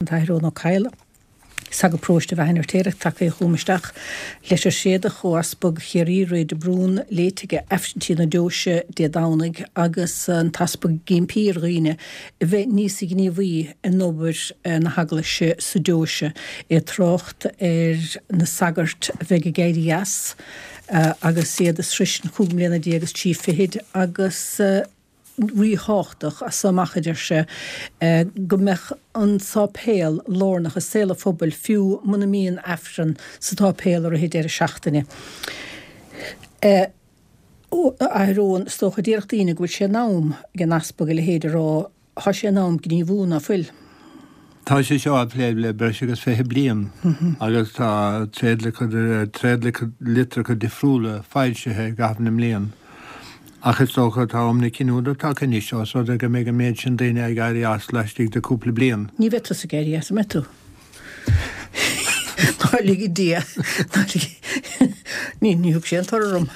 An tAthair Eoin Ó Cadhla, Sagart Paróiste Bheatha an Fheirtéaraigh, tagtha chugam isteach. Leitir Tréadach ó Easpag Chiarraí, Ray de Brún, léite aige Aifreann Tí na Deoise Dé Domhnaigh agus an tEaspag ag impí ar dhaoine a bheith níos gníomhaí in obair na hEaglaise sa deoise. É ag trácht ar na sagairt a bheidh ag éirí as agus iad ag sroisint chúig mbliana déag is trí fichid agus ríthábhachtach as so amach, a deir sé, go mbeadh an sáipéal lárnach i saol an phobail fiú muna mbíonn Aifreann sa tsáipéal i rith an deireadh seachtaine. A Athair Eoin, is dócha, déarfadh daoine go bhfuil sé in am ag an Easpag a leithéid a rá, tá sé in am gníomhú, ná fuil? Tá sé seo á phlé le breis agus 20 bliain agus tá tréadlitreacha difriúla foilsithe i gcaitheamh na mblian. Ach is dócha tá am na cinniúna tagtha anois ós rud é go mbeidh an méid sin daoine ag éirí as laistigh de cúpla bliain. Ní bheidh tusa ag éirí as, an mbeidh tú? Ná lige Dia, ná lige, ní, ní thug sé an toradh orm.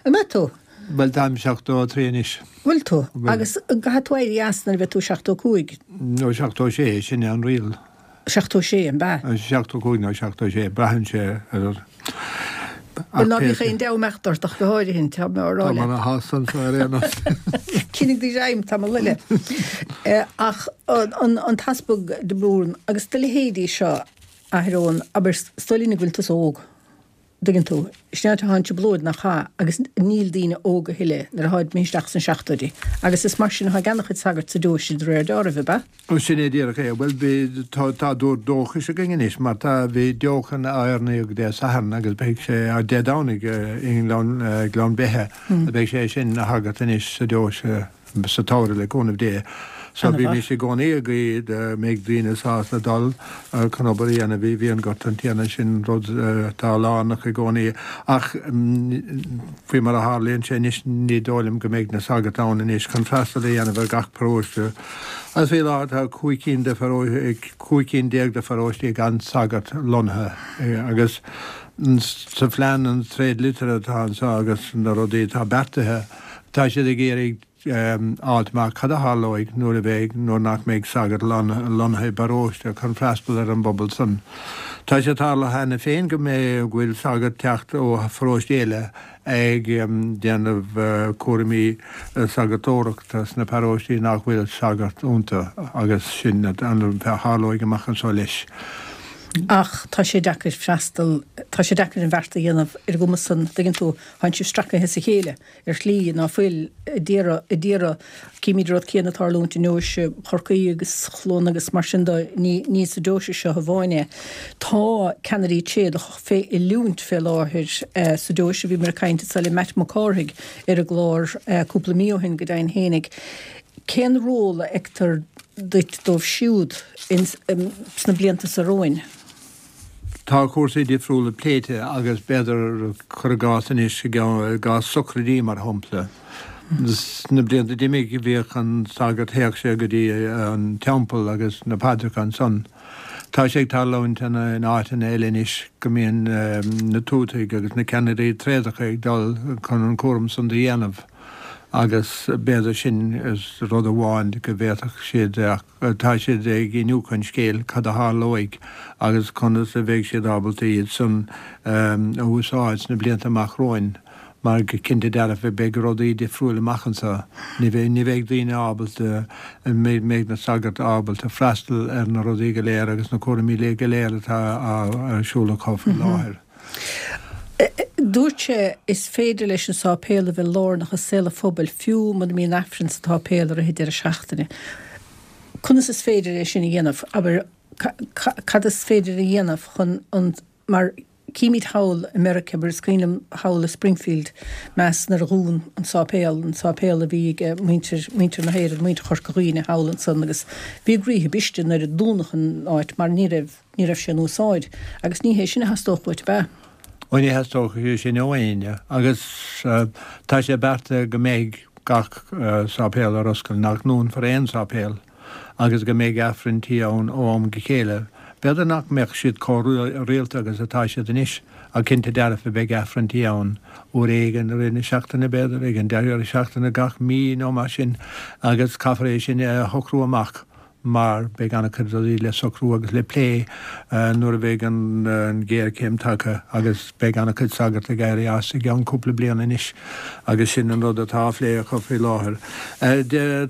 An mbeidh tú? Bhuel, táim 73 anois. Bhfuil tú? Agus caithfidh tú éirí as nuair a bheidh tú 75? Nó 76, sin é an riail. 76, an ea? 75 nó 76, braitheann sé ar. Bhuel, ná bíodh aon dea-imeacht ort ach go háirithe, tá mé á rá leat. Tá mé ana shásta anseo ar aon nós. Coinnigh do ghreim tamall eile. Ach an tEaspag de Brún agus do leithéidí seo, a Athair Eoin, abair, is dóigh linn go bhfuil tusa óg. dtuigeann tú. Sin é tá an trioblóid nach ea agus níl daoine óg a thuilleadh nuair atáid imithe isteach sna seachtóidí. Agus is mar sin atá ag ana-chuid sagart sa deoise de réir deáraimh, ab ea? Ó sin é díreach é. Bhuel bhí, tá, tá dúr dóchais againn anois mar tá, bhí deochan á oirníodh Dé Sathairn agus beidh sé, Dé Domhnaigh i nGleann, Gleann Beithe, beidh sé sin ina shagart anois sa deoise. sa tsamhradh le cúnamh Dé. So bímis i gcónaí ag guí go mbeidh daoine sásta dul chun obair a dhéanamh i bhfíonghort an Tiarna, sin rud atá lárnach i gcónaí. Ach faoi mar a tharlaíonn sé anois ní dóigh liom go mbeidh na sagairt ann anois chun freastal a dhéanamh ar gach paróiste. Agus faoi láthair tá 15 cinn de 15 cinn de pharóistí gan sagart lonnaithe agus sa phlean an tréadlitir atá anseo agus na rudaí atá beartaithe, Tá siad ag iarraidh a fháilt amach cad a tharlóidh nuair a bheidh, nuair nach mbeidh sagart lonnaithe i bparóiste chun freastal ar an bpobal san. Tá sé tarlaithe cheana féin go mbeidh, go bhfuil sagart teacht ó pharóiste eile ag déanamh cúraimí sagartóireachta sna paróistí nach bhfuil sagart iontu agus sin a tharlóidh amach anseo leis. Ach tá sé deacair freastal, tá sé deacair an bheart a dhéanamh ar an gcuma san, dtuigeann tú, Tánn sibh stracaithe as a chéile ar shlí ná fuil ag iarraidh, ag iarraidh, címid an rud céanna ag tarlúint i ndeoise Chorcaí agus Chluana agus mar sin de, ní, ní sa deoise seo amháin é. Tá ceannairí tréadach fé oiliúint fé láthair sa deoise, bhíomar ag caint anso le Matt Mac Cárthaigh ar an gclár cúpla mí ó shin go deimhin fhéinig. Cén ról a fheictear duit dóibh siúd ins, sna blianta so romhainn? Tá cúrsaí difriúla pléite agus b'fhéidir, cuir i gcás anois, i gcás socraidí mar shampla. Sna blianta d'imigh bhíodh an sagart, théadh sé go dtí an teampall agus na paidreacha ansan. Tá sé ag tarlúint in áiteanna eile anois go mbíonn na tuataigh agus na ceannairí tréadacha ag dul chun an cúram san do dhéanamh agus b'fhéidir sin rud amháin go bhféadfadh siad Tá siad ag iniúchadh an scéil, cad a tharlóidh agus conas a bheidh siad ábalta iad san a úsáid sna blianta amach romhainn mar go cinnte dearfa beidh rudaí difriúil amach anseo. Ní bheidh, ní bheidh daoine ábalta, mbeidh na sagairt ábalta freastal ar na rudaí go léir agus na cúraimí go léir atá ar siúl acu faoi láthair. Dúirt sé, Is féidir leis an sáipéal a bheith lárnach i saol an phobail fiú muna mbíonn Aifreann sa tsáipéal i rith an deireadh seachtaine. Conas is féidir é sin a dhéanamh? Abair, cad is féidir a dhéanamh chun an, mar címid thall i Meiriceá, abair, is cuimhin liom thall i Springfield, Mass nuair a dhún an sáipéal, an sáipéal a bhí ag muintir, muintir na hÉireann, muintir Chorca Dhuibhne thall ansan agus bhí a gcroíthe briste nuair a dúnadh an áit mar ní raibh, Ní raibh sé in úsáid, agus ní hé sin a theastódh uait, ab ea? Ó ní theastódh sé sin ó éinne, agus tá sé beartaithe go mbeidh gach sáipéal ar oscailt, nach ndúnfar aon sáipéal, agus go mbeidh Aifrinn tí ann ó am go chéile. B'fhéidir nach mbeadh siad chomh rialta agus atá siad anois. Ach cinnte dearfa beidh Aifrinntí ann uair éigin i rith na seachtaine b'fhéidir, ag an deireadh seachtaine gach mí nó mar sin agus caithfear é sin a shocrú amach mar beidh an-chuid rudaí le socrú agus le plé nuair a bheidh an ghéarchéim tagtha agus beidh an-chuid sagart ag éirí as i gceann cúpla bliain anois agus sin an rud atá á phlé acu faoi láthair.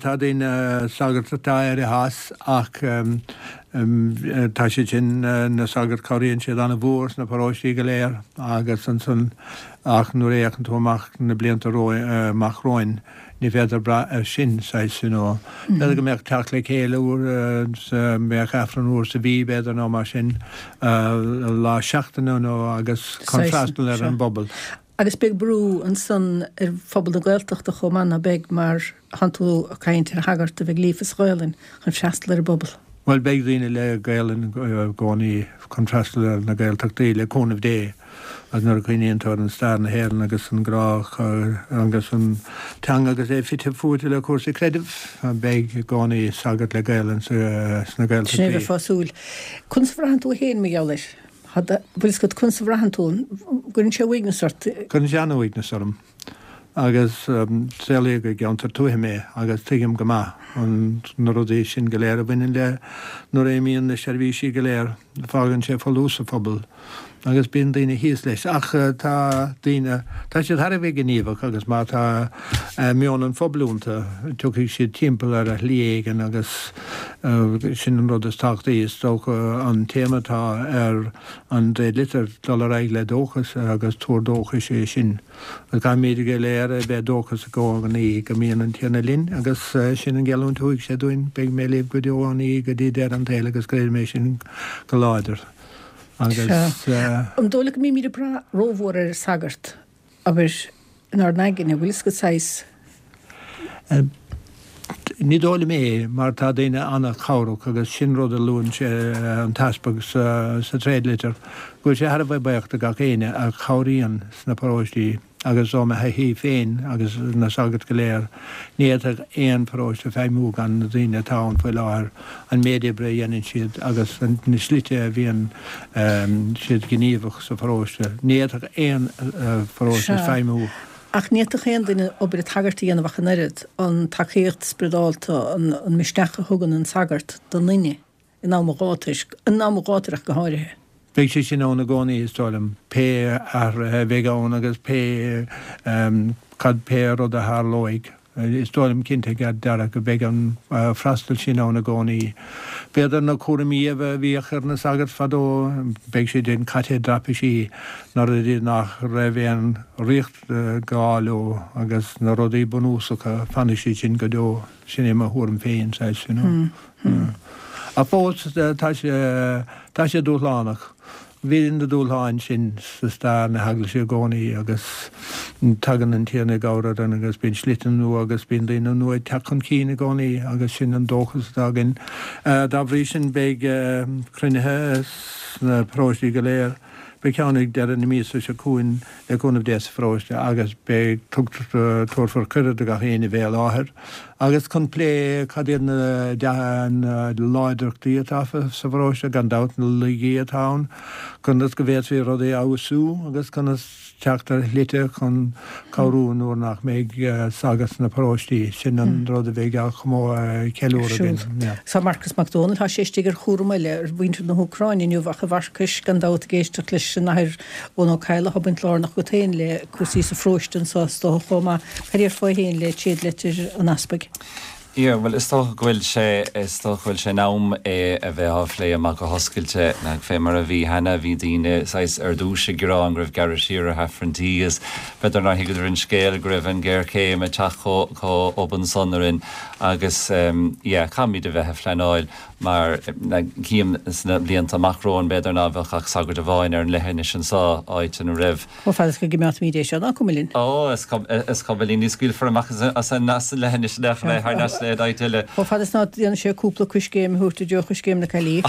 Tá daoine, sagart atá éirithe as ach tá siad sin, na sagairt, cabhraíonn siad an-mhór sna paróistí go léir agus ansan ach nuair a fhéachann tú amach na blianta amach romhainn, Ní féidir brath air sin, saghas, you know. B'fhéidir go mbeadh teacht le chéile uair sa, mbeadh Aifreann uair sa mhí, b'fhéidir, nó mar sin, lá seachtaine nó agus chun freastal ar an bpobal. Agus beidh brú ansan ar phobal na Gaeltachta chomh maith, ná beidh, mar tánn tú ag caint ar shagart a bheidh líofa sa Ghaelainn chun freastal ar an bpobal. Bhuel, beidh daoine le Gaelainn i gcónaí chun freastal ar na Gaeltachtaí, le cúnamh Dé. Agus nuair a chuimhníonn tú ar an stair na hÉireann agus an grá agus an teanga agus é fite fuaite le cúrsaí creidimh, beidh i gcónaí sagart le Gaelainn sna Gaeltachtaí. Sin é a bheifeá ag súil. Conas a bhraitheann tú féin mar gheall air? Bhfuil fhios agat conas a bhraitheann tú? Gcuireann sé uaigneas ort? Cuireann sé an-uaigneas orm. Agus saolaíodh i gceantar tuaithe mé agus tuigim go maith an na rudaí sin go léir a bhaineann le nuair a imíonn na seirbhísí go léir, fágann sé folús sa phobal agus bíonn daoine thíos leis. Ach tá daoine, tá siad thar a bheith gníomhach agus má tá meon an phobail iontu, tiocfaidh siad timpeall ar shlí éigin agus sin an rud is tábhachtaí. Is dócha an téama atá ar an dtréadlitir, dul ar aghaidh le dóchas agus tuar dóchais é sin. Caithfimid go léir a bheith dóchasach i gcónaí go mbíonn an Tiarna linn agus sin an gheallúint a thug sé dúinn, beidh mé libh go deo an ní go dtí deireadh an tsaoil agus creidim é sin go láidir agus. An dóigh leat go mbímid ag brath rómhór ar an sagart, abair, inár n-aigne, bhfuil fhios agat saghas. Ní dóigh liom é, mar tá daoine an-chabhrach agus sin rud a luann sé, an tEaspag, sa tréadlitir, go bhfuil sé thar a bheith buíoch de gach éinne a chabhraíonn sna paróistí agus ó mo thaithí féin agus na sagairt go léir, ní fhéadfadh aon pharóiste feidhmiú gan na daoine atá ann faoi láthair, an méid oibre a dhéanann siad agus na slite a bhíonn siad gníomhach sa pharóiste. Ní fhéadfadh aon pharóiste feidhmiú. Ach ní fhéadfadh aon duine obair an tsagairt a dhéanamh ach an oiread, an tacaíocht spioradálta, an misneach a thugann an sagart don duine in am an ghátair, in am an ghátair ach go háirithe. Beidh sé sin ann i gcónaí, is dóigh liom, pé athruithe a bheidh ann agus pé cad, pé rud a tharlóidh. Is dóigh liom cinnte dearfa go mbeidh an freastal sin ann i gcónaí. B'fhéidir na cúraimí a bhíodh ar na sagairt fadó, beidh siad sin caite i dtraipisí, na rudaí nach raibh aon riacht gá leo agus na rudaí bunúsacha, fanfaidh siad sin go deo. Sin é mo thuairim féin, saghas, you know. Ach fós, tá sé, tá sé dúshlánach. Bhí na dúshláin sin sa stair na hEaglaise i gcónaí agus tagann an Tiarna i gcabhair orainn agus bíonn slite nua agus bíonn daoine nua ag teacht chun cinn i gcónaí agus sin an dóchas atá againn. Dá bhrí sin beidh cruinnithe sna paróistí go léir. Beidh ceann ag deireadh na míosa seo chugainn le cúnamh Dé sa pharóiste agus beidh, tabharfar cuireadh do gach éinne bheith i láthair agus chun plé cad iad na láidreachtaí atá sa pharóiste, gan dabht na laigí atá ann, conas go bhféadfaí rudaí a fheabhsú agus conas teacht ar shlite chun cabhrú nuair nach mbeidh sagart sna paróistí. Sin an rud a bheidh á cheiliúradh againn. Tá Marcus Mac Dónaill, tá sé istigh ar chúram eile ar mhuintir na hÚcráine inniu ach a Mharcais, gan dabht ag éisteacht leis an Athair Eoin Ó Cadhla, tá baint lárnach agat féin le cúrsaí sa pharóiste anseo is dócha chomh maith. Cad déarfá féin le tréadlitir an Easpaig? Yeah, bhuel is dócha go bhfuil sé, is dócha go bhfuil sé in am é a bheith á phlé amach go hoscailte. Nach fé mar a bhí cheana, bhí daoine saghas ar dtúis ag gearán go raibh gearradh siar ar Aifrinntí agus b'fhéidir nár thuigeadar an scéal go raibh an ghéarchéim ag teacht chomh chomh obann san orainn agus yeah, caithfimid a bheith ag pleanáil mar cím sna blianta amach romhainn b'fhéidir ná bheadh ach sagart amháin ar an leithinis anseo, áit ina raibh Chomh fada is go gcimeádfaimid é seo, ná cuma linn. Ó, is cuma linn, ní scaoilfear amach as an leithinis le thar n-ais le áit eile. Chomh fada is ná déanann sé cúpla coiscéim a thabhairt i dtreo choiscéim na caillí.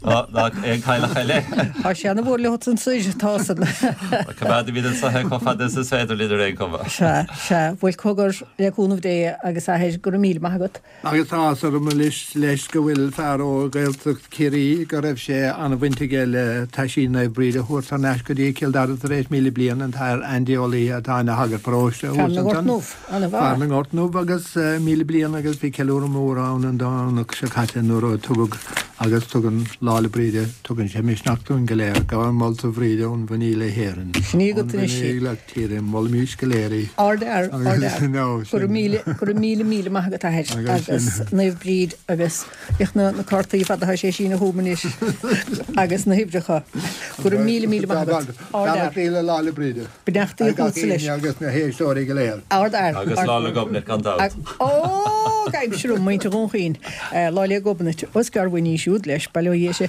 Ná aon chailleach eile. Tá sé ana-mhór leo ansoir, tá san. Coimeádfaimid anso é chomh fada is is féidir linn ar aon chuma. Sea, sea. Bhuel, cogar, le cúnamh Dé agus athair, go raibh míle maith agat. Agus tá áthas orm anois leis go bhfuil fear ó Ghaeltacht Chiarraí go raibh sé an-bhaint aige le taisí Naomh Bríd a thabhairt thar n-ais go dtí Cill Dara tar éis 1,000 bliain, an tAthair Andy Ó Laoithe atá ina shagart paróiste thuas ansan. Fear na nGort nDubh, an-mhaith. Fear na nGort nDubh agus 1,000 bliain agus bhí ceiliúradh mór ann an Domhnach seo caite nuair a tugadh agus tugann Lá 'le Bríde, tugann sé misneach dúinn go léir. Gabhaim molta Bhríde ón bhFiníl le hÉirinn. Sin í agat anois í. Ón bhFiníl Tíre, molaimís go léir í. Ardfhear, ardfhear. Go raibh míle, go raibh míle, míle maith agat athair agus Naomh Bríd agus féach na na cártaí fada atá sé ag síneadh chugam anois agus na huimhreacha. Go raibh míle, míle maith agat. Ardfhear. Beannachtaí le Lá 'le Bríde. Beannachtaí chugatsa leis. Agus na héisteoirí go léir. Ardfhear. Agus Lá 'le Gobnait gan dabht. Ó, gabhaimse romham, muintir Dhún Chaoin. Lá 'le Gobnait. Ó is gearr uainn í siúd leis, bail ó Dhia uirthi.